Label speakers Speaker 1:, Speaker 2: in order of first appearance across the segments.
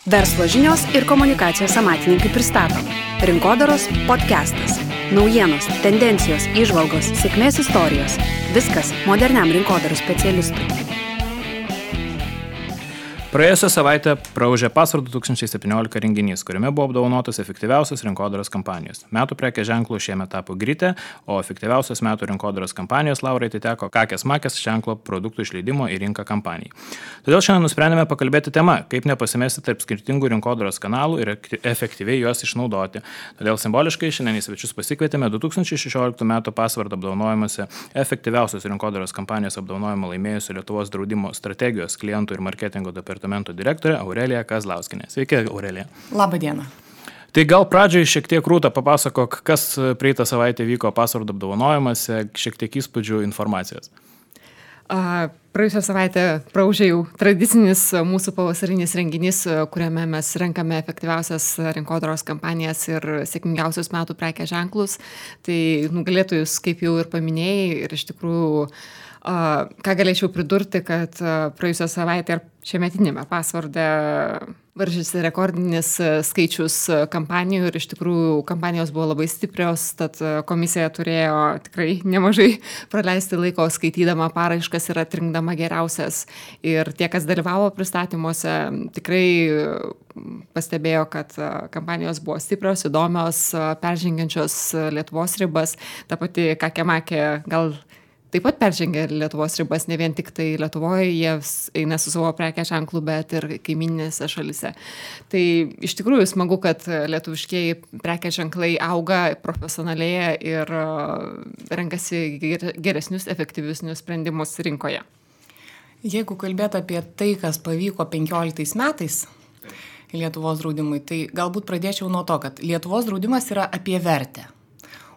Speaker 1: Verslo žinios ir komunikacijos amatininkai pristato Rinkodaros podcastas. Naujienos, tendencijos, įžvalgos, sėkmės istorijos. Viskas moderniam rinkodaros specialistui.
Speaker 2: Praėjusią savaitę praūžė Password 2017 renginys, kuriame buvo apdovanotos efektyviausios rinkodaros kampanijos. Metų prekės ženklų šiemet tapo Grytė, o efektyviausios metų rinkodaros kampanijos laurai atiteko Kakės Makės ženklo produktų išleidimo į rinką kampanijai. Todėl šiandien nusprendėme pakalbėti tema, kaip nepasimesti tarp skirtingų rinkodaros kanalų ir efektyviai juos išnaudoti. Todėl simboliškai šiandien į svečius pasikvietėme 2016 metų Password apdovanojimuose efektyviausios rinkodaros kampanijos apdovanojimą laimėjusių Lietuvos draudimo strategijos, klientų ir marketingo departamento direktorė Aurelija Kazlauskienė. Sveiki, Aurelija.
Speaker 3: Labą dieną.
Speaker 2: Tai gal pradžiai šiek tiek Rūta papasakok, kas praeitą savaitę vyko Password apdovanojimuose, šiek tiek įspūdžių informacijos.
Speaker 3: Praėjusią savaitę praūžė jau tradicinis mūsų pavasarinis renginys, kuriame mes renkame efektyviausias rinkodaros kampanijas ir sėkmingiausius metų prekės ženklus. Tai nugalėtojus, kaip jau ir paminėjai, ir iš tikrųjų ką galėčiau pridurti, kad praėjusią savaitę ir šiemetinėme Password'e varžėsi rekordinis skaičius kampanijų ir iš tikrųjų kampanijos buvo labai stiprios, tad komisija turėjo tikrai nemažai praleisti laiko skaitydama paraiškas ir atrinkdama geriausias. Ir tie, kas dalyvavo pristatymuose, tikrai pastebėjo, kad kampanijos buvo stiprios, įdomios, peržengiančios Lietuvos ribas. Ta pati Kakė Makė gal taip pat peržengia Lietuvos ribas, ne vien tik tai Lietuvoje, jie eina su savo prekės ženklu, bet ir kaimyninėse šalise. Tai iš tikrųjų smagu, kad lietuviškieji prekės ženklai auga, profesionalėja ir renkasi geresnius, efektyvesnius sprendimus rinkoje.
Speaker 4: Jeigu kalbėt apie tai, kas pavyko 15 metais Lietuvos draudimui, tai galbūt pradėčiau nuo to, kad Lietuvos draudimas yra apie vertę.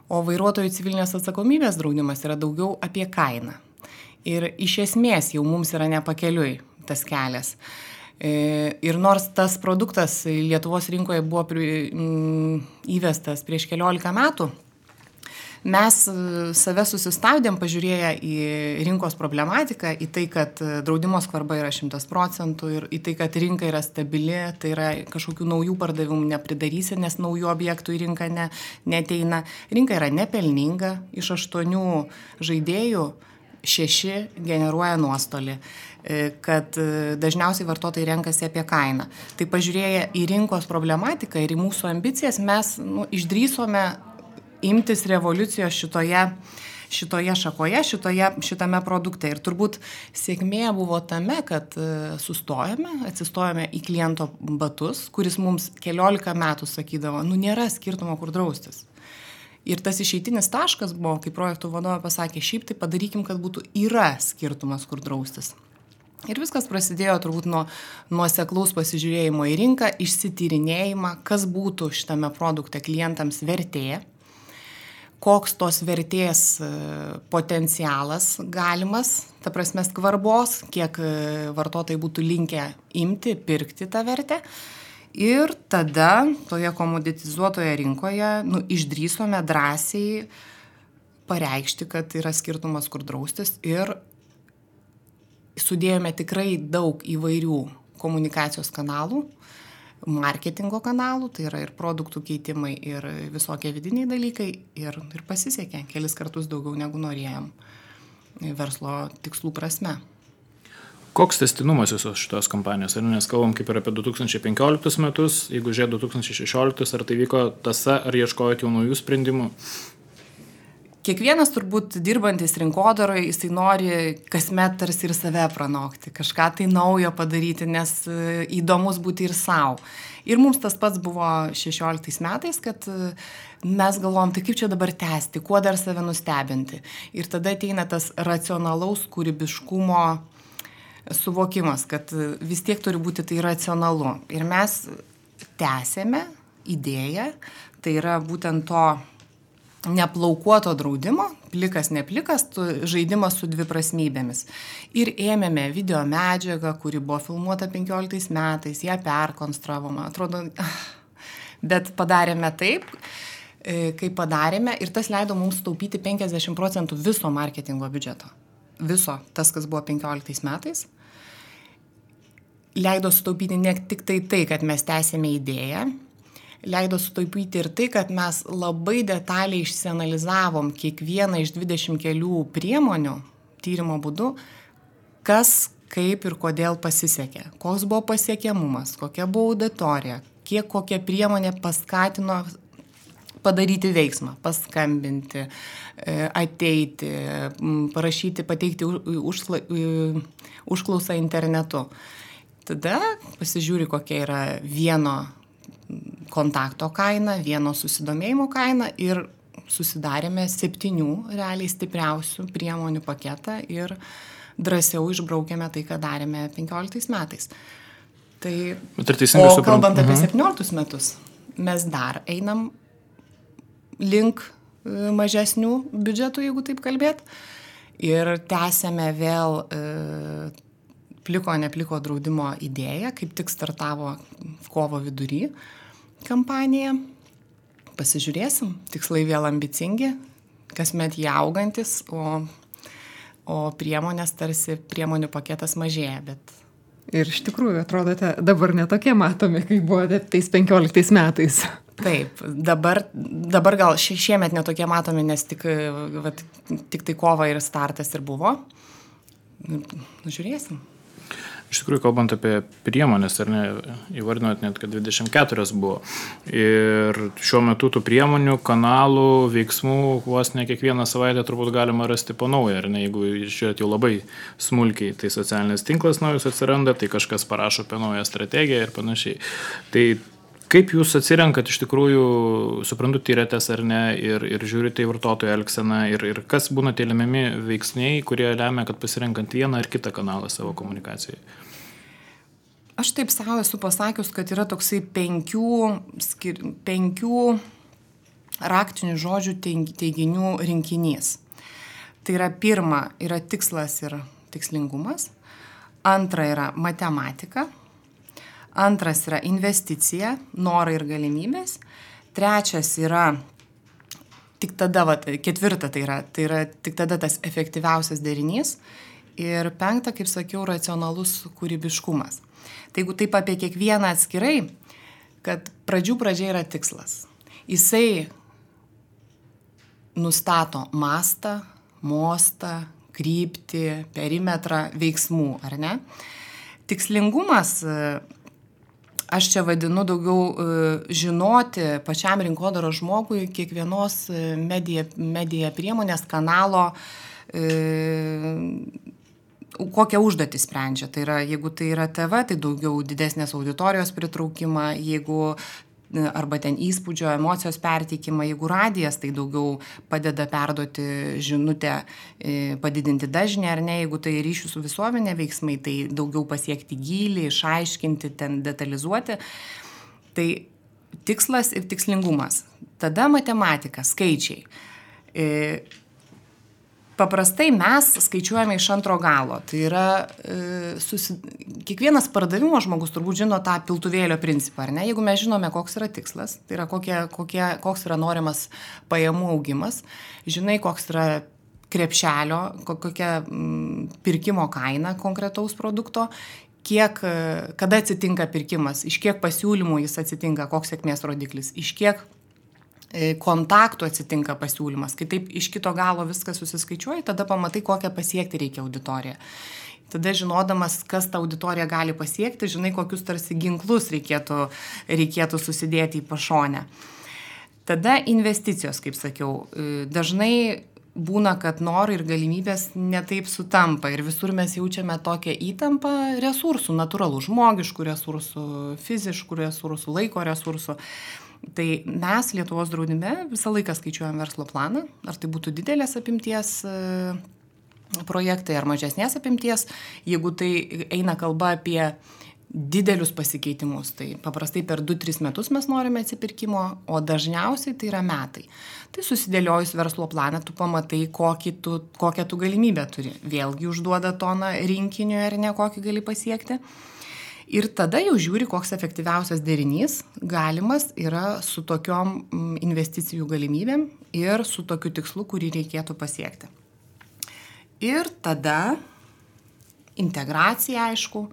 Speaker 4: O vairuotojų civilinės atsakomybės draudimas yra daugiau apie kainą. Ir iš esmės jau mums yra nepakeliui tas kelias. Ir nors tas produktas Lietuvos rinkoje buvo įvestas prieš 15 metų, mes save susistabdėm, pažiūrėję į rinkos problematiką, į tai, kad draudimo skvarba yra 100% ir į tai, kad rinka yra stabili, tai yra kažkokių naujų pardavimų nepridarysi, nes naujų objektų į rinką neteina. Rinka yra nepelninga, iš 8 žaidėjų 6 generuoja nuostolį, kad dažniausiai vartotojai renkasi apie kainą. Tai pažiūrėję į rinkos problematiką ir į mūsų ambicijas, mes išdrįsome imtis revoliucijos šitoje šakoje, šitame produkte. Ir turbūt sėkmė buvo tame, kad atsistojome į kliento batus, kuris mums 14 metų sakydavo, nėra skirtumo, kur draustis. Ir tas išeitinis taškas buvo, kai projektų vadovė pasakė, šiaip tai padarykim, kad yra skirtumas, kur draustis. Ir viskas prasidėjo turbūt nuo nuoseklaus pasižiūrėjimo į rinką, išsityrinėjimą, kas būtų šitame produkte klientams vertė, koks tos vertės potencialas galimas, ta prasme skvarbos, kiek vartotojai būtų linkę imti, pirkti tą vertę. Ir tada toje komoditizuotoje rinkoje išdrįsome drąsiai pareikšti, kad yra skirtumas, kur draustis, ir sudėjome tikrai daug įvairių komunikacijos kanalų, marketingo kanalų, tai yra ir produktų keitimai, ir visokie vidiniai dalykai, ir pasisekė kelis kartus daugiau negu norėjom verslo tikslų prasme.
Speaker 2: Koks tęstinumas visos šitos kampanijos? Nes kalbam kaip ir apie 2015 metus, jeigu žiūrė 2016, ar tai vyko tąsa, ar ieškojot jau naujų sprendimų?
Speaker 4: Kiekvienas turbūt dirbantis rinkodaroje, jisai nori kasmet tarsi ir save pranokti, kažką tai naujo padaryti, nes įdomus būti ir savo. Ir mums tas pats buvo 16 metais, kad mes galvom, tai kaip čia dabar tęsti, kuo dar save nustebinti. Ir tada ateina tas racionalaus kūrybiškumo suvokimas, kad vis tiek turi būti tai racionalu. Ir mes tęsėme idėją, tai yra būtent to neplaukuoto draudimo, plikas, neplikas, žaidimas su dviprasmybėmis. Ir ėmėme video medžiagą, kuri buvo filmuota 15 metais, ją perkonstravome, atrodo, bet padarėme taip, kaip padarėme, ir tas leido mums taupyti 50% viso marketingo biudžeto. Viso, tas, kas buvo 15 metais. leido sutaupyti ne tik tai, kad mes tęsėme idėją, leido sutaupyti ir tai, kad mes labai detaliai išsianalizavom kiekvieną iš 20 kelių priemonių tyrimo būdu, kas, kaip ir kodėl pasisekė, koks buvo pasiekiamumas, kokia buvo auditorija, kiek kokia priemonė paskatino padaryti veiksmą, paskambinti, ateiti, parašyti, pateikti užklausą internetu. Tada pasižiūri, kokia yra vieno kontakto kaina, vieno susidomėjimo kaina ir susidarėme 7 realiai stipriausių priemonių paketą ir drąsiau išbraukėme tai, ką darėme 15 metais. Tai, o kalbant apie 17 metus, mes dar einam link mažesnių biudžetų, jeigu taip kalbėt, ir tęsėme vėl pliko draudimo idėją, kaip tik startavo kovo vidury kampanija. Pasižiūrėsim, tikslai vėl ambicingi, kasmet jie augantis, o priemonės tarsi priemonių paketas mažėja, bet...
Speaker 3: Ir iš tikrųjų, atrodote, dabar netokie matomi, kaip buvote tais 15 metais.
Speaker 4: Taip, dabar gal šiemet netokie matomi, nes tik tai kova ir startas ir buvo. Žiūrėsim.
Speaker 2: Iš tikrųjų, kalbant apie priemonės, ar ne, įvardinot net, kad 24 buvo. Ir šiuo metu tų priemonių, kanalų, veiksmų, vos ne kiekvieną savaitę turbūt galima rasti po naują, ar ne, jeigu žiūrėt jau labai smulkiai, tai socialinis tinklas naujus atsiranda, tai kažkas parašo apie naują strategiją ir panašiai. Tai kaip jūs atsirenkat iš tikrųjų, suprantu, tyrėtės ar ne, ir žiūrite į vartotojo elgseną, ir kas būna tie lemiami veiksniai, kurie lemia, kad pasirenkant vieną ar kitą kanalą savo komunikacijai?
Speaker 4: Aš taip savo esu pasakius, kad yra toksai 5 raktinių žodžių teiginių rinkinys. Tai yra pirma, yra tikslas ir tikslingumas. Antra yra matematika. Antras yra investicija, norai ir galimybės. Trečias yra tik tada, ketvirta tai yra tik tada tas efektyviausias derinys. Ir 5, kaip sakiau, racionalus kūrybiškumas. Tai jeigu taip apie kiekvieną atskirai, kad pradžia yra tikslas. Jisai nustato mastą, mostą, kryptį, perimetrą veiksmų, ar ne? Tikslingumas, aš čia vadinu daugiau žinoti pačiam rinkodaros žmogui kiekvienos medija priemonės kanalo, kokią užduotį sprendžia. Tai yra, jeigu tai yra TV, tai daugiau didesnės auditorijos pritraukimą, jeigu arba ten įspūdžio, emocijos perteikimą, jeigu radijas, tai daugiau padeda perduoti žinutę, padidinti dažnį, ar ne, jeigu tai ryšių su visuomenė veiksmai, tai daugiau pasiekti gylį, išaiškinti, ten detalizuoti. Tai tikslas ir tikslingumas. Tada matematika, skaičiai. Paprastai mes skaičiuojame iš antro galo. Tai yra, kiekvienas pardavimo žmogus turbūt žino tą piltuvėlio principą, ar ne? Jeigu mes žinome, koks yra tikslas, tai yra koks yra norimas pajamų augimas, žinai, koks yra krepšelio, kokia pirkimo kaina konkretaus produkto, kada atsitinka pirkimas, iš kiek pasiūlymų jis atsitinka, koks sėkmės rodiklis, iš kiek kontaktų atsitinka pasiūlymas, kai taip iš kito galo viskas susiskaičiuoja, tada pamatai, kokią pasiekti reikia auditoriją. Tada žinodamas, kas tą auditoriją gali pasiekti, žinai, kokius tarsi ginklus reikėtų susidėti į pašonę. Tada investicijos, kaip sakiau, dažnai būna, kad norai ir galimybės netaip sutampa ir visur mes jaučiame tokią įtampą resursų, natūralų, žmogiškų resursų, fiziškų resursų, laiko resursų. Tai mes Lietuvos draudime visą laiką skaičiuojam verslo planą, ar tai būtų didelės apimties projektai ar mažesnės apimties. Jeigu tai eina kalba apie didelius pasikeitimus, tai paprastai per 2-3 metus mes norime atsipirkimo, o dažniausiai tai yra metai. Tai susidėliojus verslo planą, tu pamatai, kokią tu galimybę turi. Vėlgi užduoda toną rinkiniui ar ne, kokį gali pasiekti. Ir tada jau žiūri, koks efektyviausias derinys galimas yra su tokiom investicijų galimybėm ir su tokiu tikslu, kurį reikėtų pasiekti. Ir tada integracija, aišku,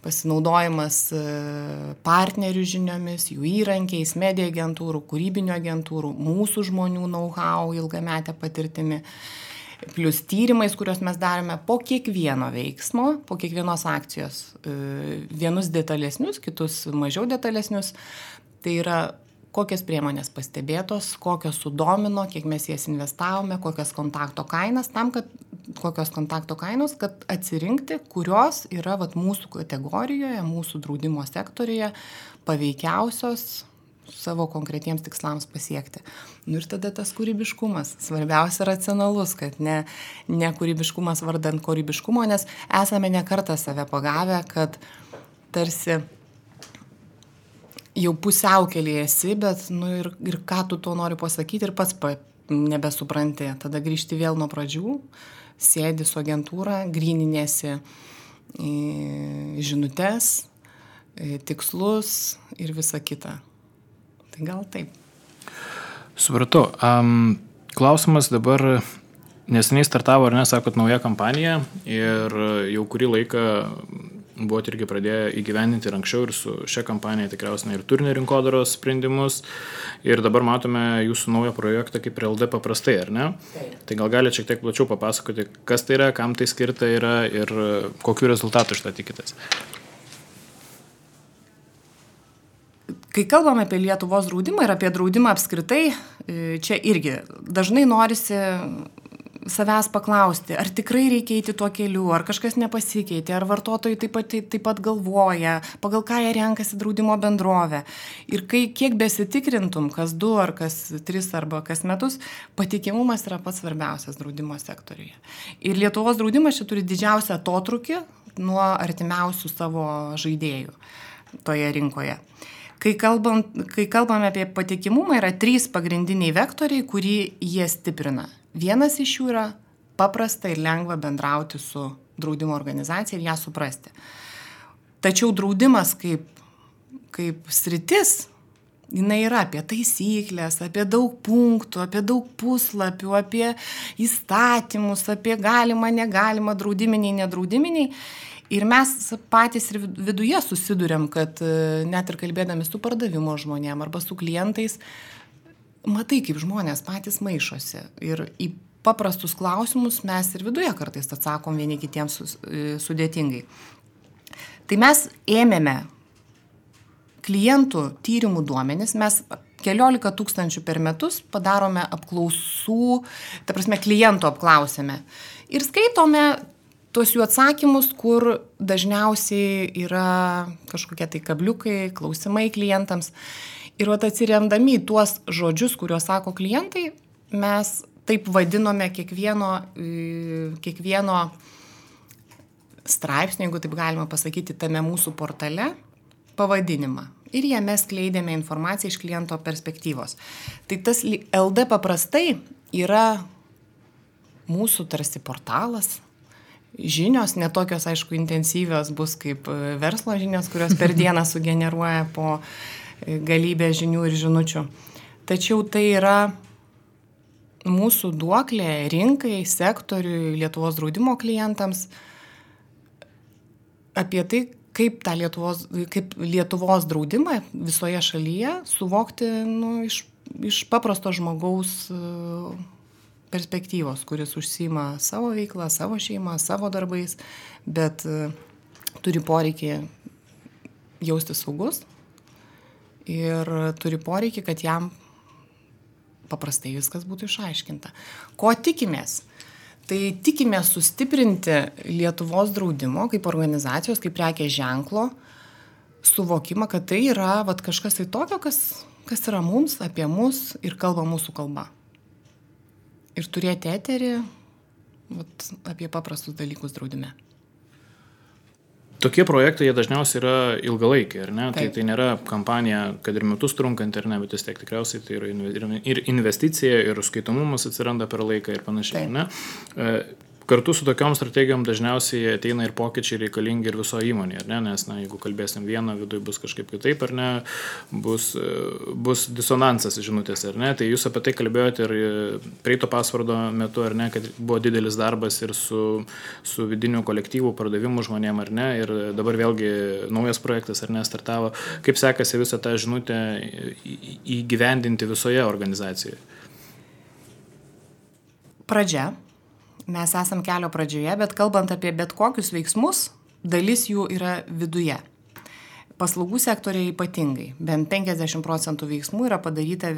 Speaker 4: pasinaudojimas partnerių žiniomis, jų įrankiais, medija agentūrų, kūrybinio agentūrų, mūsų žmonių know-how, ilgametę patirtimi, plus tyrimais, kuriuos mes darome po kiekvieno veiksmo, po kiekvienos akcijos, vienus detalesnius, kitus mažiau detalesnius. Tai yra kokios priemonės pastebėtos, kokios sudomino, kiek mes jas investavome, kokios kontakto kainos, kad atsirinkti, kurios yra mūsų kategorijoje, mūsų draudimo sektorijoje paveikiausios savo konkretiems tikslams pasiekti. Ir tada tas kūrybiškumas, svarbiausia racionalus, kad ne kūrybiškumas vardant kūrybiškumo, nes esame ne kartą save pagavę, kad tarsi jau pusiaukelėje esi, bet ir ką tu to nori pasakyti ir pats nebesupranti. Tada grįžti vėl nuo pradžių, sėdi su agentūra, gryninėsi žinutes, tikslus ir visa kita. Tai gal taip.
Speaker 2: Supratau. Klausimas dabar, neseniai startavo, ar ne, sakot, nauja kampanija ir jau kurį laiką buvot irgi pradėję įgyvendinti ir anksčiau ir su šia kampanija tikriausiai ir turinio rinkodaros sprendimus ir dabar matome jūsų naują projektą kaip LD paprastai, ar ne?
Speaker 4: Taip.
Speaker 2: Tai gal galite šiek tiek plačiau papasakoti, kas tai yra, kam tai skirta yra ir kokiu rezultatu iš tą tikitės?
Speaker 4: Kai kalbame apie Lietuvos draudimą ir apie draudimą apskritai, čia irgi dažnai norisi savęs paklausti, ar tikrai reikia eiti tuo keliu, ar kažkas nepasikeitė, ar vartotojai taip pat galvoja, pagal ką jie renkasi draudimo bendrovę. Ir kiek besitikrintum, kas 2 ar kas 3 arba kas metus, patikimumas yra pats svarbiausias draudimo sektoriuje. Ir Lietuvos draudimas čia turi didžiausią atotrūkį nuo artimiausių savo žaidėjų toje rinkoje. Kai kalbame apie patikimumą, yra 3 pagrindiniai vektoriai, kurį jie stiprina. Vienas iš jų yra paprasta ir lengva bendrauti su draudimo organizacija ir ją suprasti. Tačiau draudimas kaip sritis, jinai yra apie taisyklės, apie daug punktų, apie daug puslapių, apie įstatymus, apie galimą, negalimą, draudiminiai, nedraudiminiai. Ir mes patys ir viduje susiduriam, kad net ir kalbėdami su pardavimo žmonėm arba su klientais, matai, kaip žmonės patys maišosi. Ir į paprastus klausimus mes ir viduje kartais atsakom vieni kitiems sudėtingai. Tai mes ėmėme klientų tyrimų duomenis, mes 14 000 per metus padarome apklausų, ta prasme klientų apklausėme. Ir skaitome tuos jų atsakymus, kur dažniausiai yra kažkokie tai kabliukai, klausimai klientams. Ir atsiremdami į tuos žodžius, kuriuos sako klientai, mes taip vadinome kiekvieno straipsnio, jeigu taip galima pasakyti, tame mūsų portale pavadinimą. Ir jame skleidėme informaciją iš kliento perspektyvos. Tai tas LD paprastai yra mūsų tarsi portalas. Žinios, netokios, aišku, intensyvios bus kaip verslo žinios, kurios per dieną sugeneruoja po galybę žinių ir žinučių. Tačiau tai yra mūsų duoklė rinkai, sektoriui, Lietuvos draudimo klientams apie tai, kaip Lietuvos draudimą visoje šalyje suvokti iš paprasto žmogaus perspektyvos, kuris užsiima savo veiklą, savo šeimą, savo darbais, bet turi poreikį jausti saugus ir turi poreikį, kad jam paprastai viskas būtų išaiškinta. Ko tikimės? Tai tikimės sustiprinti Lietuvos draudimo kaip organizacijos, kaip prekės ženklo suvokimą, kad tai yra kažkas tai tokio, kas yra mums, apie mus ir kalba mūsų kalba. Ir turėti eterį apie paprastus dalykus draudime.
Speaker 2: Tokie projektai, jie dažniausiai yra ilgalaikiai, ar ne?
Speaker 4: Taip.
Speaker 2: Tai nėra kampanija, kad ir metus trunkanti, ar ne, bet vis tiek tikriausiai tai yra ir investicija, ir skaitomumas atsiranda per laiką ir panašiai, ne? kartu su tokiom strategijom dažniausiai ateina ir pokyčiai reikalingi ir viso įmonė, ar ne? Nes, jeigu kalbėsim vieną, viduje bus kažkaip kitaip, ar ne, bus disonansas žinutės, ar ne? Tai jūs apie tai kalbėjote ir praeito pasvardo metu, ar ne, kad buvo didelis darbas ir su vidiniu kolektyvu, pardavimu žmonėm, ar ne? Ir dabar vėlgi naujas projektas, ar ne, startavo. Kaip sekasi visą tą žinutę įgyvendinti visoje organizacijoje?
Speaker 4: Pradžia. Mes esam kelio pradžioje, bet kalbant apie bet kokius veiksmus, dalis jų yra viduje. Paslaugų sektoriai ypatingai. Bent 50% veiksmų yra padaryta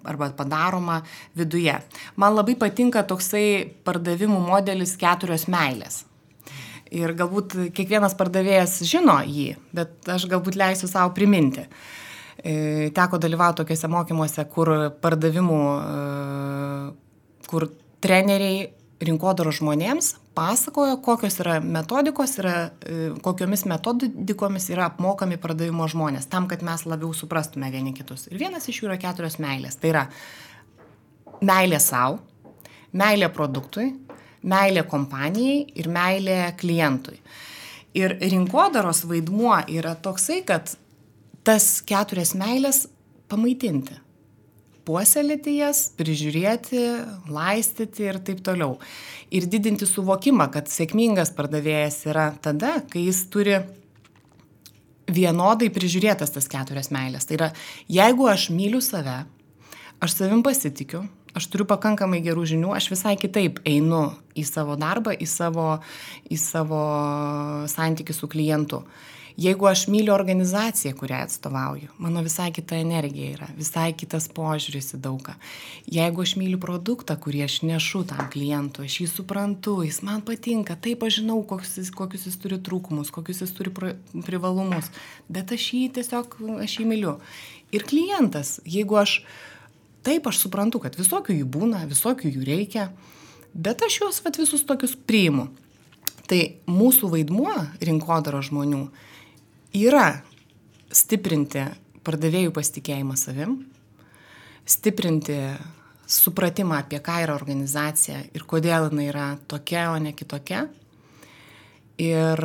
Speaker 4: arba padaroma viduje. Man labai patinka toksai pardavimų modelis 4 meilės. Ir galbūt kiekvienas pardavėjas žino jį, bet aš galbūt leisiu savo priminti. Teko dalyvauti tokiuose mokymuose, kur treneriai rinkodaros žmonėms pasakojo, kokios yra metodikos, kokiomis metodikomis yra apmokami pardavimo žmonės, tam, kad mes labiau suprastume vieni kitus. Ir vienas iš jų yra 4 meilės. Tai yra meilė savo, meilė produktui, meilė kompanijai ir meilė klientui. Ir rinkodaros vaidmuo yra toksai, kad tas 4 meilės pamaitinti. Puoselėti jas, prižiūrėti, laistyti ir taip toliau. Ir didinti suvokimą, kad sėkmingas pardavėjas yra tada, kai jis turi vienodai prižiūrėtas tas 4 meilės. Tai yra, jeigu aš myliu save, aš savim pasitikiu, aš turiu pakankamai gerų žinių, aš visai kitaip einu į savo darbą, į savo santykį su klientu. Jeigu aš myliu organizaciją, kurią atstovauju, mano visai kita energija yra, visai kitas požiūris į daugą. Jeigu aš myliu produktą, kurį aš nešu tam klientui, aš jį suprantu, jis man patinka, taip aš žinau, kokius jis turi trūkumus, kokius jis turi privalumus, bet aš jį myliu. Ir klientas, jeigu aš suprantu, kad visokių jų būna, visokių jų reikia, bet aš juos visus tokius priimu. Tai mūsų vaidmuo rinkodaros žmonių yra stiprinti pardavėjų pasitikėjimą savim, stiprinti supratimą apie ką yra organizacija ir kodėl jinai yra tokia, o ne kitokia. Ir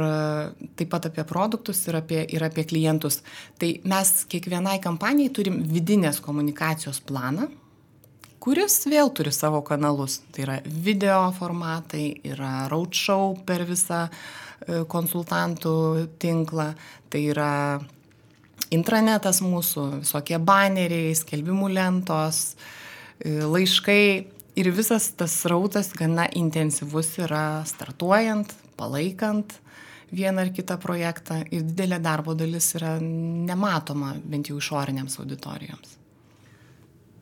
Speaker 4: taip pat apie produktus ir apie klientus. Tai mes kiekvienai kampanijai turim vidinės komunikacijos planą, kuris vėl turi savo kanalus. Tai yra video formatai, yra roadshow per visą konsultantų tinklą, tai yra intranetas mūsų, visokie baneriai, skelbimų lentos, laiškai ir visas tas srautas gana intensyvus yra startuojant, palaikant vieną ar kitą projektą ir didelė darbo dalis yra nematoma bent jau išorinėms auditorijoms.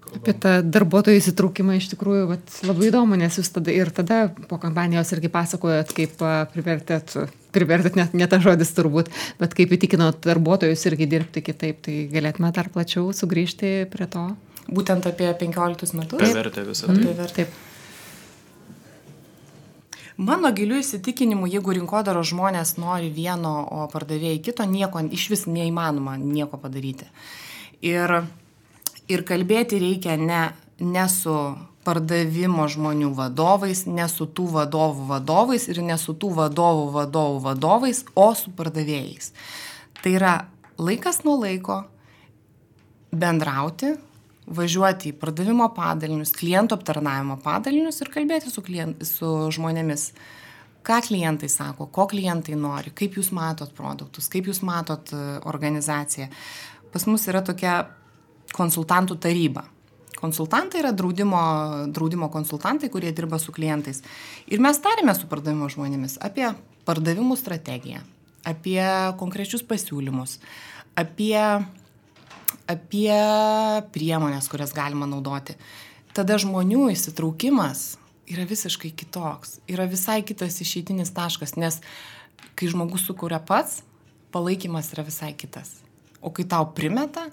Speaker 3: Apie tą darbuotojų įsitraukimą iš tikrųjų labai įdomu, nes jūs tada po kampanijos irgi pasakojot, kaip privertėt ne tas žodis turbūt, bet kaip įtikinot darbuotojus irgi dirbti kitaip, tai galėtume dar plačiau sugrįžti prie to.
Speaker 4: Būtent apie 15 metus?
Speaker 2: Privertė visą tai.
Speaker 4: Taip. Mano giliu įsitikinimu, jeigu rinkodaros žmonės nori vieno, o pardavėjai kito, iš vis neįmanoma nieko padaryti. Ir kalbėti reikia ne su pardavimo žmonių vadovais, ne su tų vadovų vadovais ir ne su tų vadovų vadovais, o su pardavėjais. Tai yra laikas nuo laiko bendrauti, važiuoti į pardavimo padalinius, klientų aptarnavimo padalinius ir kalbėti su žmonėmis. Ką klientai sako, ko klientai nori, kaip jūs matot produktus, kaip jūs matot organizaciją. Pas mus yra tokia konsultantų taryba. Konsultantai yra draudimo konsultantai, kurie dirba su klientais. Ir mes tarėme su pardavimo žmonėmis apie pardavimų strategiją, apie konkrečius pasiūlymus, apie priemonės, kurias galima naudoti. Tada žmonių įsitraukimas yra visiškai kitoks, yra visai kitas išeitinis taškas, nes kai žmogus sukuria pats, palaikymas yra visai kitas. O kai tau primeta,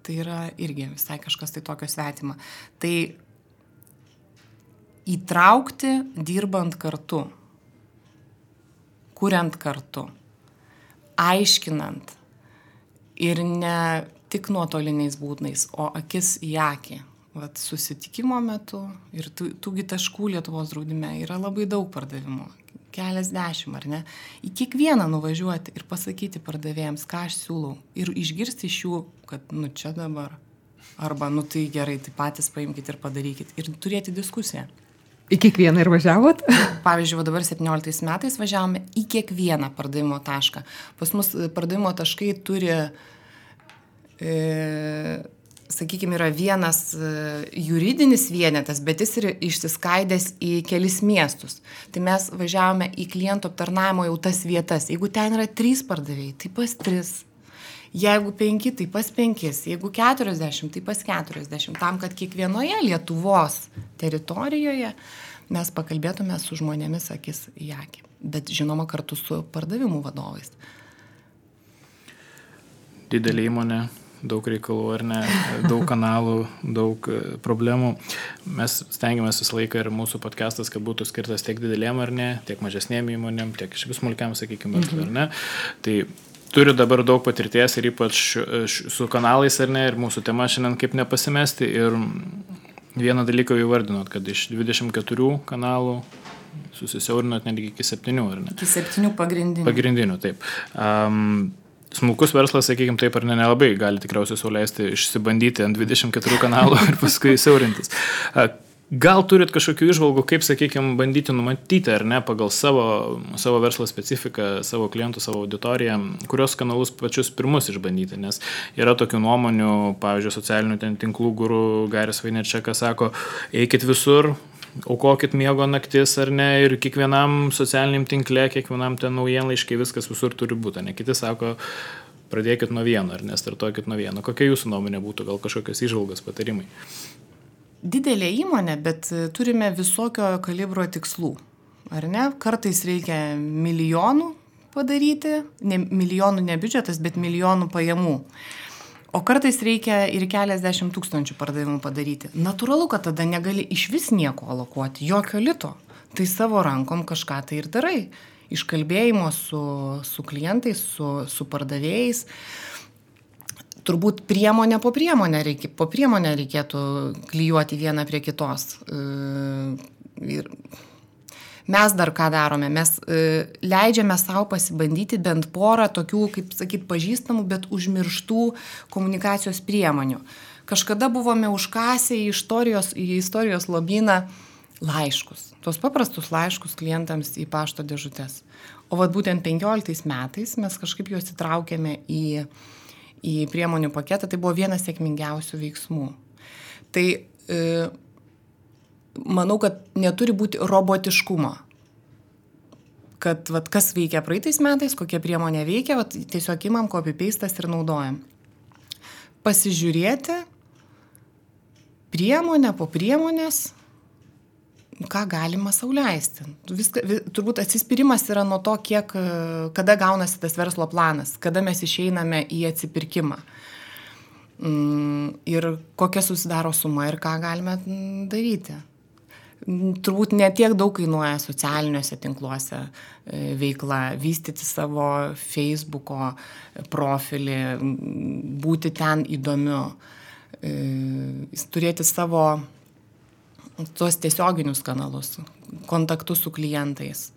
Speaker 4: tai yra irgi visai kažkas tai tokio svetima. Tai įtraukti dirbant kartu, kuriant kartu, aiškinant ir ne tik nuotoliniais būdais, o akis į akį. vat, susitikimo metu ir tųgi taškų Lietuvos draudime yra labai daug pardavimų, keliasdešimt, ar ne? Į kiekvieną nuvažiuoti ir pasakyti pardavėjams, ką aš siūlau ir išgirsti iš jų, kad nu čia dabar, arba nu tai gerai, tai patys paimkite ir padarykit ir turėti diskusiją.
Speaker 3: Į kiekvieną ir važiavot?
Speaker 4: Pavyzdžiui, dabar 17 metais važiavome į kiekvieną pardavimo tašką. Pas mus pardavimo taškai turi, sakykime, yra vienas juridinis vienetas, bet jis yra išsiskaidęs į kelis miestus. Tai mes važiavome į klientų aptarnavimo jau tas vietas. Jeigu ten yra 3 pardavėjai, tai pas 3. Jeigu 5, tai pas 5. Jeigu 40, tai pas 40. Tam, kad kiekvienoje Lietuvos teritorijoje mes pakalbėtume su žmonėmis akis į akį. Bet žinoma kartu su pardavimų vadovais.
Speaker 2: Didelė įmonė, daug reikalų ar ne, daug kanalų, daug problemų. Mes stengiamės visą laiką ir mūsų podcastas, kad būtų skirtas tiek didelėm ar ne, tiek mažesnėm įmonėm, tiek iš vis smulkiam, sakykime, ar ne. Tai turiu dabar daug patirties ir ypač su kanalais ar ne, ir mūsų tema šiandien kaip nepasimesti. Ir vieną dalyką jau įvardinot, kad iš 24 kanalų susisiaurinot netgi iki 7, ar ne?
Speaker 4: Iki 7 pagrindinių.
Speaker 2: Pagrindinių, taip. Smulkus verslas, sakykime, taip ar ne, nelabai gali tikriausiai sau leisti išsibandyti ant 24 kanalų ir paskui siaurintis. Gal turit kažkokių įžvalgų, kaip, sakykime, bandyti numatyti, ar ne, pagal savo verslo specifiką, savo klientų, savo auditoriją, kurios kanalus pačius pirmus išbandyti, nes yra tokių nuomonių, pavyzdžiui, socialinių tinklų guru Garis Vaynerchukas sako, eikit visur, aukokit miego naktis, ar ne, ir kiekvienam socialiniam tinkle, kiekvienam ten naujienlaiškai, viskas visur turi būti, ne, kiti sako, pradėkit nuo vieno, ar ne, startuokit nuo vieno. Kokia jūsų nuomonė būtų, gal kažkokios įžvalgos, patarimai?
Speaker 4: Didelė įmonė, bet turime visokio kalibro tikslų, ar ne? Kartais reikia milijonų padaryti, milijonų ne biudžetas, bet milijonų pajamų. O kartais reikia ir keliasdešimt tūkstančių pardavimų padaryti. Natūralu, kad tada negali iš vis nieko alokuoti, jokio lito. Tai savo rankom kažką tai ir darai. Iškalbėjimo su klientais, su pardavėjais. Turbūt priemonę po priemonę reikėtų klijuoti vieną prie kitos. Ir mes dar ką darome? Mes leidžiame savo pasibandyti bent porą tokių, kaip sakyt, pažįstamų, bet užmirštų komunikacijos priemonių. Kažkada buvome užkasę į istorijos lobyną laiškus. Tuos paprastus laiškus klientams į pašto dėžutes. O vat būtent 15 metais mes kažkaip juos įtraukėme į priemonių paketą, tai buvo vienas sėkmingiausių veiksmų. Tai manau, kad neturi būti robotiškumo. Kad vat, kas veikia praeitais metais, kokia priemonė veikia, vat, tiesiog imam copy-pastas ir naudojam. Pasižiūrėti priemonę po priemonės, ką galima sau leisti. Turbūt atsispyrimas yra nuo to, kada gaunasi tas verslo planas, kada mes išeiname į atsipirkimą ir kokia susidaro suma ir ką galime daryti. Turbūt ne tiek daug kainuoja socialiniuose tinkluose veikla, vystyti savo Facebooko profilį, būti ten įdomiu, turėti savo tuos tiesioginius kanalus, kontaktus su klientais,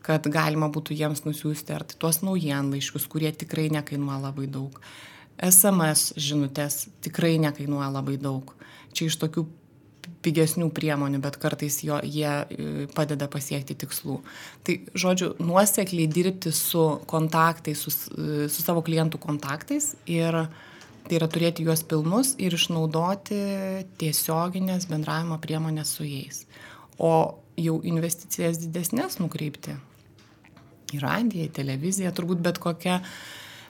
Speaker 4: kad galima būtų jiems nusiųsti ar tuos naujienlaiškius, kurie tikrai nekainuoja labai daug. SMS žinutės tikrai nekainuoja labai daug. Čia iš tokių pigesnių priemonių, bet kartais jie padeda pasiekti tikslų. Tai, žodžiu, nuosekliai dirbti su kontaktais, su savo klientų kontaktais ir tai yra turėti juos pilnus ir išnaudoti tiesioginės bendravimo priemonės su jais. O jau investicijas didesnės nukreipti į radiją, į televiziją, turbūt bet kokia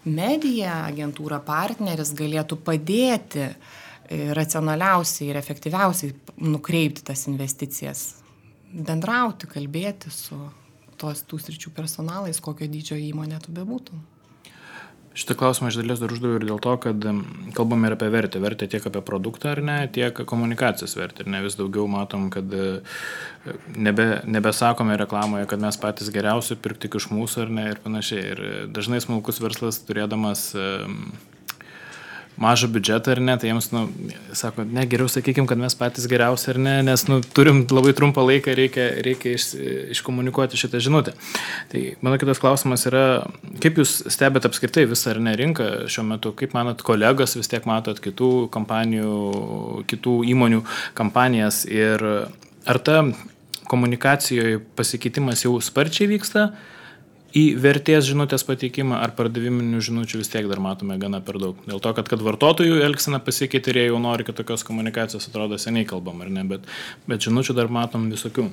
Speaker 4: medija, agentūra, partneris galėtų padėti racionaliausiai ir efektyviausiai nukreipti tas investicijas. Bendrauti, kalbėti su tų sričių personalais, kokio dydžio įmonė tu bebūtum.
Speaker 2: Šitą klausimą iš dalies dar uždaviau ir dėl to, kad kalbame ir apie vertę. Vertę tiek apie produktą ar ne, tiek komunikacijos vertę. Ir ne vis daugiau matom, kad nebesakome reklamoje, kad mes patys geriausi, pirk tik iš mūsų ar ne ir panašiai. Ir dažnai smulkus verslas turėdamas mažą biudžetą ar ne, tai jiems, sako, ne, geriau sakykim, kad mes patys geriausi ar ne, nes, turim labai trumpą laiką, reikia iškomunikuoti šitą žinutę. Tai mano kitas klausimas yra, kaip jūs stebėt apskritai visą ar ne rinką šiuo metu, kaip manot, kolegos vis tiek matot kitų kompanijų, kitų įmonių kampanijas ir ar ta komunikacijoje pasikeitimas jau sparčiai vyksta į vertės žinutės pateikimą ar pardaviminių žinučių vis tiek dar matome gana per daug. Dėl to, kad vartotojų elgsena pasikeitė ir jie jau nori, kad tokios komunikacijos atrodo seniai kalbam, ar ne, bet žinučių dar matom visokių.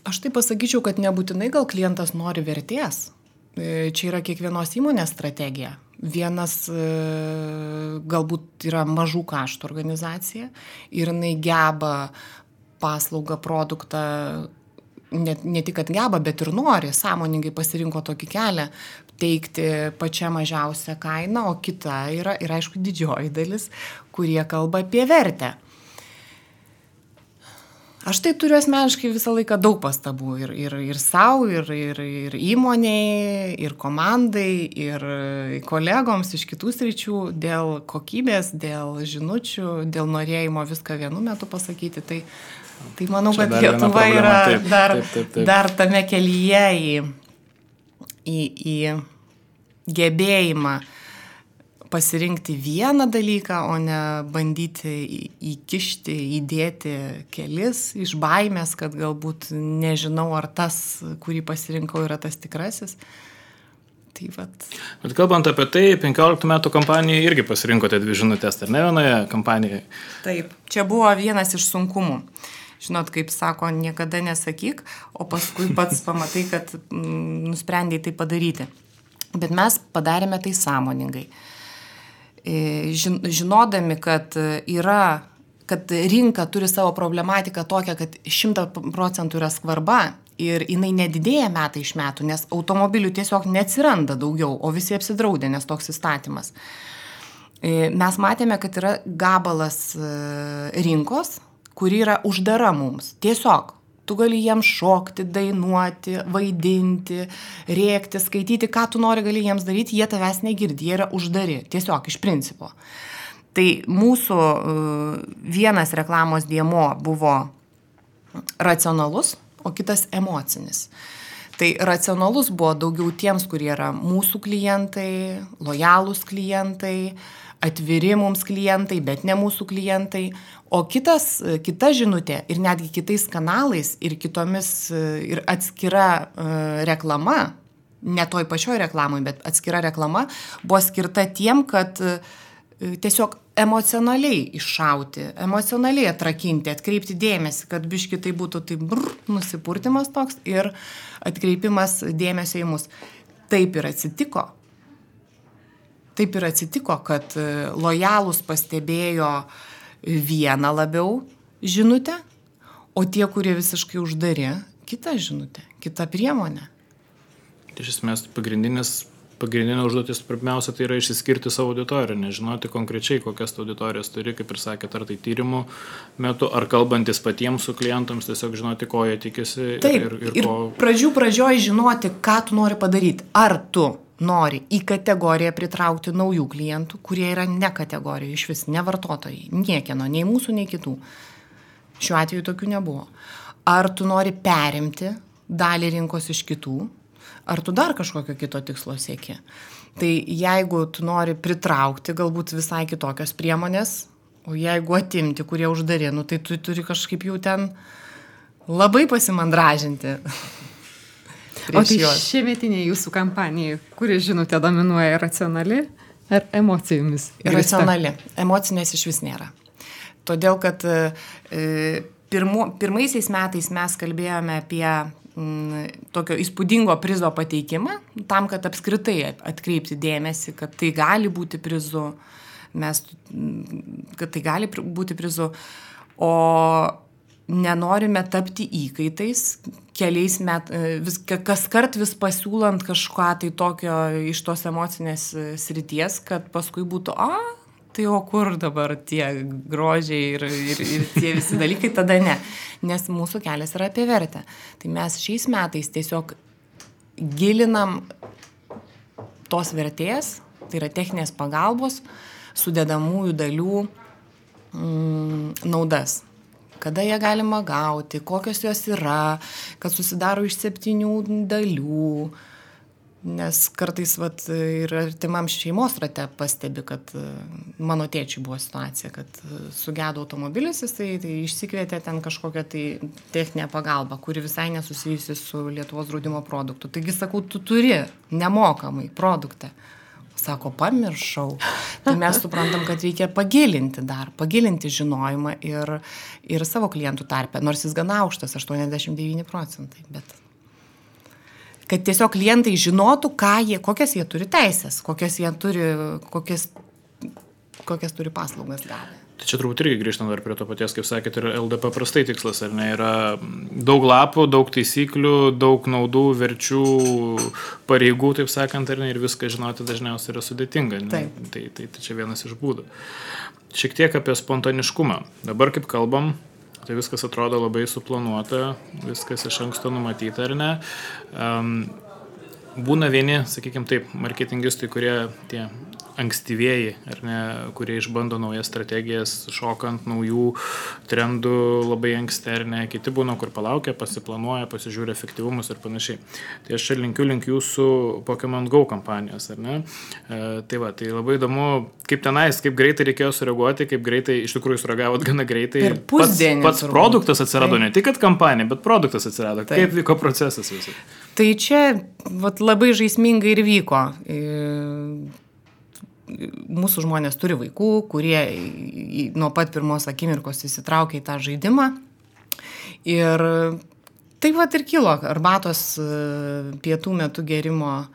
Speaker 4: Aš tai pasakyčiau, kad nebūtinai gal klientas nori vertės. Čia yra kiekvienos įmonės strategija. Vienas galbūt yra mažų kaštų organizacija ir jinai geba paslaugą, produktą, ne tik kad geba, bet ir nori, sąmoningai pasirinko tokį kelią, teikti pačią mažiausią kainą, o kita yra ir aišku didžioji dalis, kurie kalba apie vertę. Aš tai turiu asmeniškai visą laiką daug pastabų ir savo, ir įmoniai, ir komandai, ir kolegoms iš kitų sričių dėl kokybės, dėl žinučių, dėl norėjimo viską vienu metu pasakyti. Tai manau, kad Lietuva yra dar tame kelyje į gebėjimą pasirinkti vieną dalyką, o ne bandyti įkišti, įdėti kelis iš baimės, kad galbūt nežinau, ar tas, kurį pasirinkau, yra tas tikrasis. Tai vat.
Speaker 2: Bet kalbant apie tai, 15 metų kampanijai irgi pasirinkote 2 žinutės, ar ne vienoje kampanijoje?
Speaker 4: Taip, čia buvo vienas iš sunkumų. Žinot, kaip sako, niekada nesakyk, o paskui pats pamatai, kad nusprendėjai tai padaryti. Bet mes padarėme tai sąmoningai. Žinodami, kad rinka turi savo problematiką tokią, kad 100% yra skvarba ir jinai nedidėja metai iš metų, nes automobilių tiesiog neatsiranda daugiau, o visi apsidraudė, nes toks įstatymas. Mes matėme, kad yra gabalas rinkos, kuri yra uždara mums. Tiesiog, tu gali jiems šokti, dainuoti, vaidinti, rėkti, skaityti, ką tu nori gali jiems daryti, jie tavęs negirdi, jie yra uždari, tiesiog iš principo. Tai mūsų vienas reklamos dėmuo buvo racionalus, o kitas emocinis. Tai racionalus buvo daugiau tiems, kurie yra mūsų klientai, lojalūs klientai, atviri mums klientai, bet ne mūsų klientai, o kita žinutė ir netgi kitais kanalais ir kitomis ir atskira reklama, ne toj pačioj reklamai, bet atskira reklama buvo skirta tiem, kad tiesiog emocionaliai iššauti, emocionaliai atrakinti, atkreipti dėmesį, kad biški tai būtų nusipurtimas toks ir atkreipimas dėmesio į mus. Taip ir atsitiko. Taip ir atsitiko, kad lojalūs pastebėjo vieną labiau žinutę, o tie, kurie visiškai uždari, kitą žinutę, kitą priemonę.
Speaker 2: Iš esmės, pagrindinė užduotis pirmiausia tai yra išsiskirti savo auditoriją, nežinoti konkrečiai, kokias auditorijas turi, kaip ir sakėt, ar tai tyrimų metu, ar kalbantis patiems su klientams, tiesiog žinoti, ko jie tikisi.
Speaker 4: Taip, ir pradžioj žinoti, ką tu nori padaryti. Ar tu nori į kategoriją pritraukti naujų klientų, kurie yra ne kategorija, iš vis ne vartotojai, niekieno, nei mūsų, nei kitų. Šiuo atveju tokių nebuvo. Ar tu nori perimti dalį rinkos iš kitų, ar tu dar kažkokio kito tikslo sieki. Tai jeigu tu nori pritraukti galbūt visai kitokios priemonės, o jeigu atimti, kurie uždari, tai tu turi kažkaip jau ten labai pasimandražinti.
Speaker 3: O tai šiemetinė jūsų kampanija, kuri žinutė dominuoja, racionali ar emocijomis?
Speaker 4: Racionali. Emocinės iš vis nėra. Todėl, kad pirmaisiais metais mes kalbėjome apie tokio įspūdingo prizo pateikimą, tam, kad apskritai atkreipti dėmesį, kad tai gali būti prizu, kad tai gali būti prizu, o nenorime tapti įkaitais, keliais kaskart vis pasiūlant kažką tai tokio iš tos emocinės srities, kad paskui būtų, tai o kur dabar tie grožiai ir tie visi dalykai, tada ne. Nes mūsų kelias yra apie vertę. Tai mes šiais metais tiesiog gilinam tos vertės Tai yra techninės pagalbos sudedamųjų dalių naudas. Kada ją galima gauti, kokios jos yra, kad susidaro iš 7 dalių. Nes kartais ir artimam šeimos rate pastebi, kad mano tėčiui buvo situacija, kad sugedo automobilis, jisai tai išsikvietė ten kažkokią tai techninę pagalbą, kuri visai nesusijusi su Lietuvos draudimo produktu. Taigi sakau, tu turi nemokamai produktą. Sako, pamiršau. Tai mes suprantam, kad reikia pagilinti žinojimą ir savo klientų tarpe, nors jis gana aukštas, 89%, bet kad tiesiog klientai žinotų, kokias jie turi teisės, kokias turi paslaugas gavę.
Speaker 2: Tai čia turbūt irgi grįžtant dar prie to paties, kaip sakėt, ir LDP prastai tikslas, ar ne, yra daug lapų, daug taisyklių, daug naudų, verčių, pareigų, taip sakant, ar ne, ir viską žinoti dažniausiai yra sudėtinga. Tai čia vienas iš būdų. Šiek tiek apie spontaniškumą. Dabar kaip kalbam, tai viskas atrodo labai suplanuota, viskas iš anksto numatyta, ar ne. Būna vieni, sakykime taip, marketingistai, kurie tie ankstyvieji, ar ne, kurie išbando naujas strategijas, šokant naujų trendų labai anksti, ar ne, kiti būna, kur palaukia, pasiplanuoja, pasižiūri efektyvumus ir panašiai. Tai aš čia linkiu jūsų Pokémon Go kampanijos, ar ne? Tai labai įdomu, kaip tenais, kaip greitai reikėjo sureaguoti, kaip greitai, iš tikrųjų sureagavot gana greitai.
Speaker 4: Per pusdienį.
Speaker 2: Pats produktas atsirado, ne tik kad kampanija, bet produktas atsirado. Taip. Kaip vyko procesas visai?
Speaker 4: Tai čia labai žaismingai ir vyko. Mūsų žmonės turi vaikų, kurie nuo pat pirmos akimirkos įsitraukia į tą žaidimą. Ir taip ir kilo arbatos pietų metu gerimo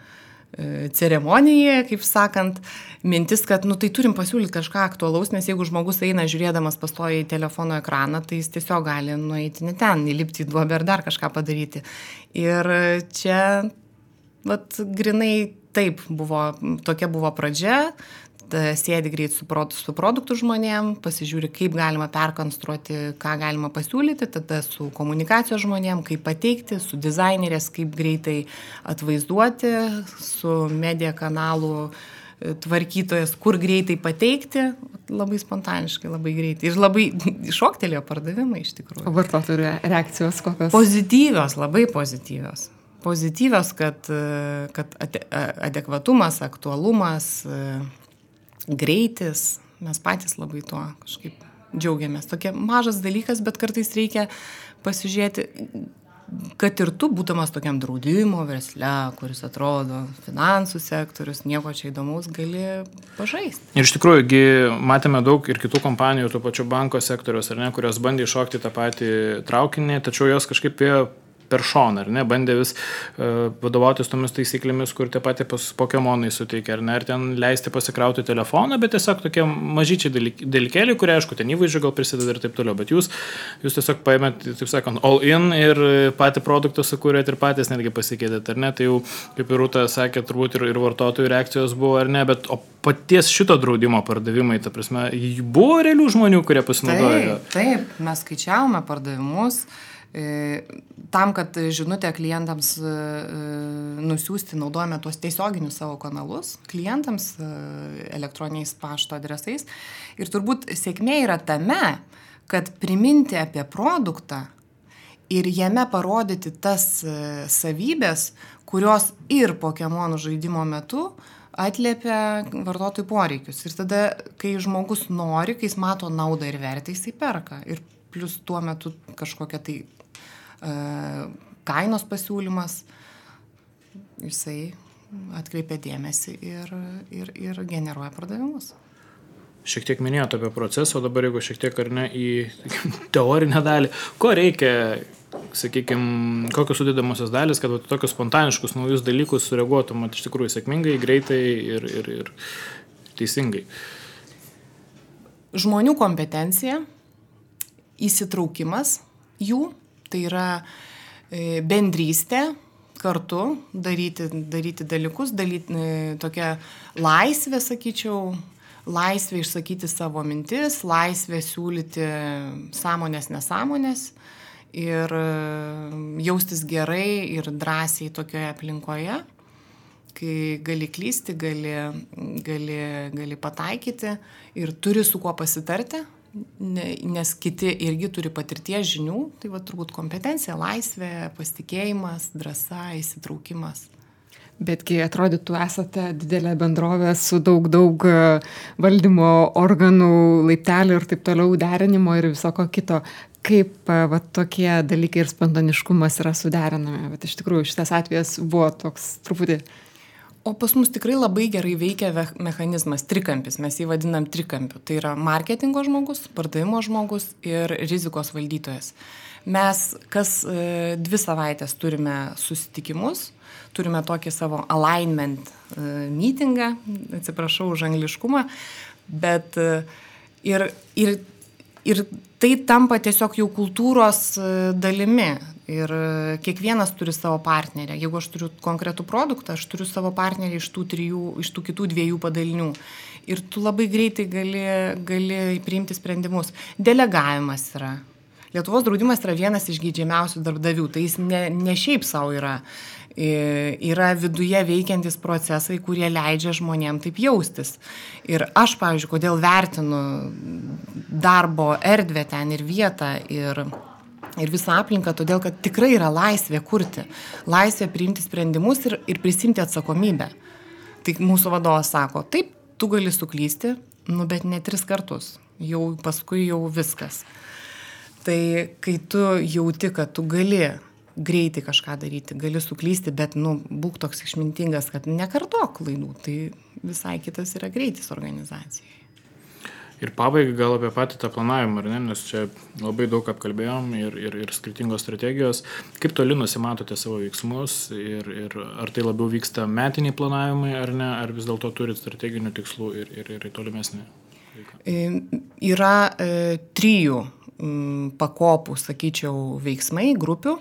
Speaker 4: ceremonija, kaip sakant, mintis, kad tai turim pasiūlyti kažką aktualaus, nes jeigu žmogus eina žiūrėdamas pastoja į telefono ekraną, tai jis tiesiog gali nueiti ne ten, įlipti į duobę ar dar kažką padaryti. Ir čia grinai taip tokia buvo pradžia, sėdi greit su produktų žmonėm, pasižiūri, kaip galima perkonstruoti, ką galima pasiūlyti, tada su komunikacijos žmonėm, kaip pateikti, su dizainerės, kaip greitai atvaizduoti, su media kanalų tvarkytojas, kur greitai pateikti, labai spontaniškai, labai greitai. Ir labai šoktelėjo pardavimai iš tikrųjų.
Speaker 3: O vartotojų reakcijos kokios?
Speaker 4: Pozityvios, labai pozityvios. Pozityvios, kad adekvatumas, aktualumas, greitis, mes patys labai tuo kažkaip džiaugiamės. Tokia mažas dalykas, bet kartais reikia pasižiūrėti, kad ir tu, būdamas tokiam draudimo versle, kuris atrodo finansų sektorius, nieko čia įdomaus, gali pažaisti.
Speaker 2: Ir iš tikrųjų, matėme daug ir kitų kompanijų, to pačio banko sektoriaus, ar ne, kurios bandė iššokti tą patį traukinį, tačiau jos kažkaip per šoną, ar ne, bandė vis vadovautis tomis taisyklėmis, kur tie patys Pokemonai suteikia, ar ne, ar ten leisti pasikrauti telefoną, bet tiesiog tokie mažyčiai dalykėliai, kurie, aišku, ten įvaizdžio gal prisideda ir taip toliau, bet jūs tiesiog paėmėt, taip sakant, all in ir patį produktą sukūrėt ir patys netgi pasikeitėt, ar ne, tai jau, kaip ir Rūta sakė, turbūt ir vartotojų reakcijos buvo, ar ne, bet o paties šito draudimo pardavimai, ta prasme, buvo realių žmonių, kurie pasinaudojo?
Speaker 4: Taip, mes skaičiavome pardavimus. Tam, kad žinutę klientams nusiųsti, naudojame tuos tiesioginius savo kanalus klientams elektroniniais pašto adresais. Ir turbūt sėkmė yra tame, kad priminti apie produktą ir jame parodyti tas savybės, kurios ir Pokemonų žaidimo metu atliepia vartotojų poreikius. Ir tada, kai žmogus nori, kai jis mato naudą ir vertę, jisai perka. Ir plus tuo metu kažkokia tai kainos pasiūlymas, jisai atkreipia dėmesį ir generuoja pardavimus.
Speaker 2: Šiek tiek minėjote apie procesą, o dabar jeigu šiek tiek ar ne į teorinę dalį, ko reikia, sakykime, kokios sudėdamosios dalis, kad tokius spontaniškus naujus dalykus sureaguotum iš tikrųjų sėkmingai, greitai ir teisingai.
Speaker 4: Žmonių kompetencija, įsitraukimas jų, tai yra bendrystė, kartu daryti dalykus, tokia laisvė, sakyčiau, laisvė išsakyti savo mintis, laisvė siūlyti sąmonės, nesąmonės ir jaustis gerai ir drąsiai tokioje aplinkoje. kai gali klysti, gali pataikyti ir turi su kuo pasitarti, nes kiti irgi turi patirties žinių, tai va turbūt kompetencija, laisvė, pasitikėjimas, drąsa, įsitraukimas.
Speaker 3: Betgi atrodytų, esate didelė bendrovė su daug valdymo organų, laiptelių ir taip toliau derinimo ir visoko kito. Kaip va, tokie dalykai ir spontaniškumas yra suderinami? Bet iš tikrųjų šitas atvejas buvo toks truputį.
Speaker 4: O pas mus tikrai labai gerai veikia mechanizmas, trikampis, mes jį vadinam trikampiu. Tai yra marketingo žmogus, pardavimo žmogus ir rizikos valdytojas. Mes kas 2 savaitės turime susitikimus, turime tokį savo alignment meetingą, atsiprašau už angliškumą, bet ir tai tampa tiesiog jau kultūros dalimi. Ir kiekvienas turi savo partnerę. Jeigu aš turiu konkretų produktą, aš turiu savo partnerį iš tų kitų 2 padalinių. Ir tu labai greitai gali priimti sprendimus. Delegavimas yra. Lietuvos draudimas yra vienas iš geidžiamiausių darbdavių. Tai jis ne šiaip savo yra. Yra viduje veikiantis procesai, kurie leidžia žmonėm taip jaustis. Ir aš, pavyzdžiui, kodėl vertinu darbo erdvę ten ir vietą ir visą aplinką, todėl, kad tikrai yra laisvė kurti, laisvė priimti sprendimus ir prisimti atsakomybę. Tai mūsų vadovas sako, taip, tu gali suklysti, bet ne 3 kartus, jau paskui jau viskas. Tai kai tu jauti, kad tu gali greitai kažką daryti, gali suklysti, bet būk toks išmintingas, kad nekartok klaidų, tai visai kitas yra greitis organizacijai.
Speaker 2: Ir pabaigai gal apie patį tą planavimą, ar ne, nes čia labai daug apkalbėjom ir skirtingos strategijos. Kaip toli nusimatote savo veiksmus ir ar tai labiau vyksta metiniai planavimai, ar ne, ar vis dėlto turit strateginių tikslų ir tolimesnį veiklą?
Speaker 4: Yra 3 pakopų, sakyčiau, veiksmai, grupių.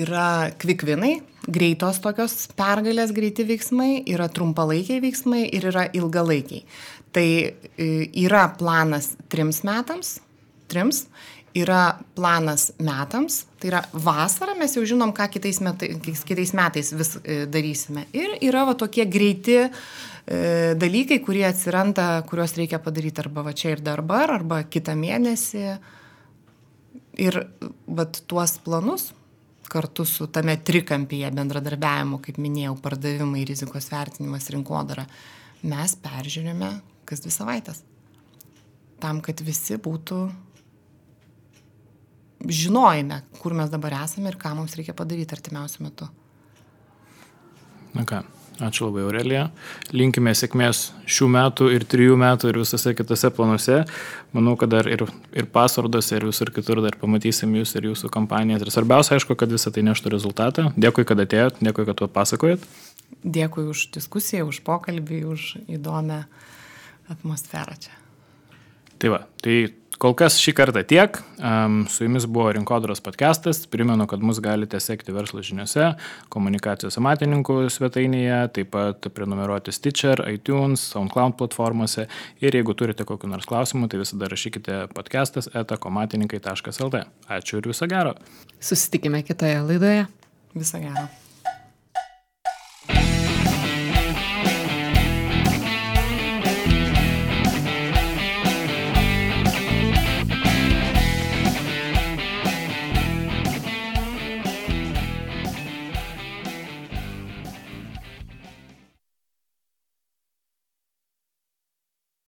Speaker 4: Yra quick winai, greitos tokios pergalės, greiti veiksmai, yra trumpalaikiai veiksmai ir yra ilgalaikiai. Tai yra planas 3 metams, yra planas metams, tai yra vasara, mes jau žinom, ką kitais metais vis darysime. Ir yra va tokie greiti dalykai, kurie atsiranda, kuriuos reikia padaryti arba va čia ir dabar, arba kitą mėnesį. Ir va tuos planus kartu su tame trikampyje bendradarbiavimo, kaip minėjau, pardavimai, rizikos vertinimas, rinkodara, mes peržiūrime kas 2 savaitės. Tam, kad visi būtų žinojime, kur mes dabar esame ir ką mums reikia padaryti artimiausiu metu.
Speaker 2: Na ką, ačiū labai, Aurelija. Linkime sėkmės šių metų ir 3 metų ir visose kitose planuose. Manau, kad dar ir Password'ose ir visur kitur dar pamatysim jūs ir jūsų kampanijas. Ir svarbiausia, aišku, kad visą tai neštų rezultatą. Dėkui, kad atėjot, dėkui, kad papasakojot.
Speaker 4: Dėkui už diskusiją, už pokalbį, už įdomią atmosferą čia.
Speaker 2: Tai va, tai kol kas šį kartą tiek. Su jumis buvo Rinkodaros podcastas. Primenu, kad mus galite sekti Verslo žiniose, Komunikacijos amatininkų svetainėje, taip pat prenumeruoti Stitcher, iTunes, SoundCloud platformose. Ir jeigu turite kokių nors klausimų, tai visada rašykite podcastas@komatininkai.lt. Ačiū ir viso gero.
Speaker 3: Susitikime kitoje laidoje.
Speaker 4: Viso gero.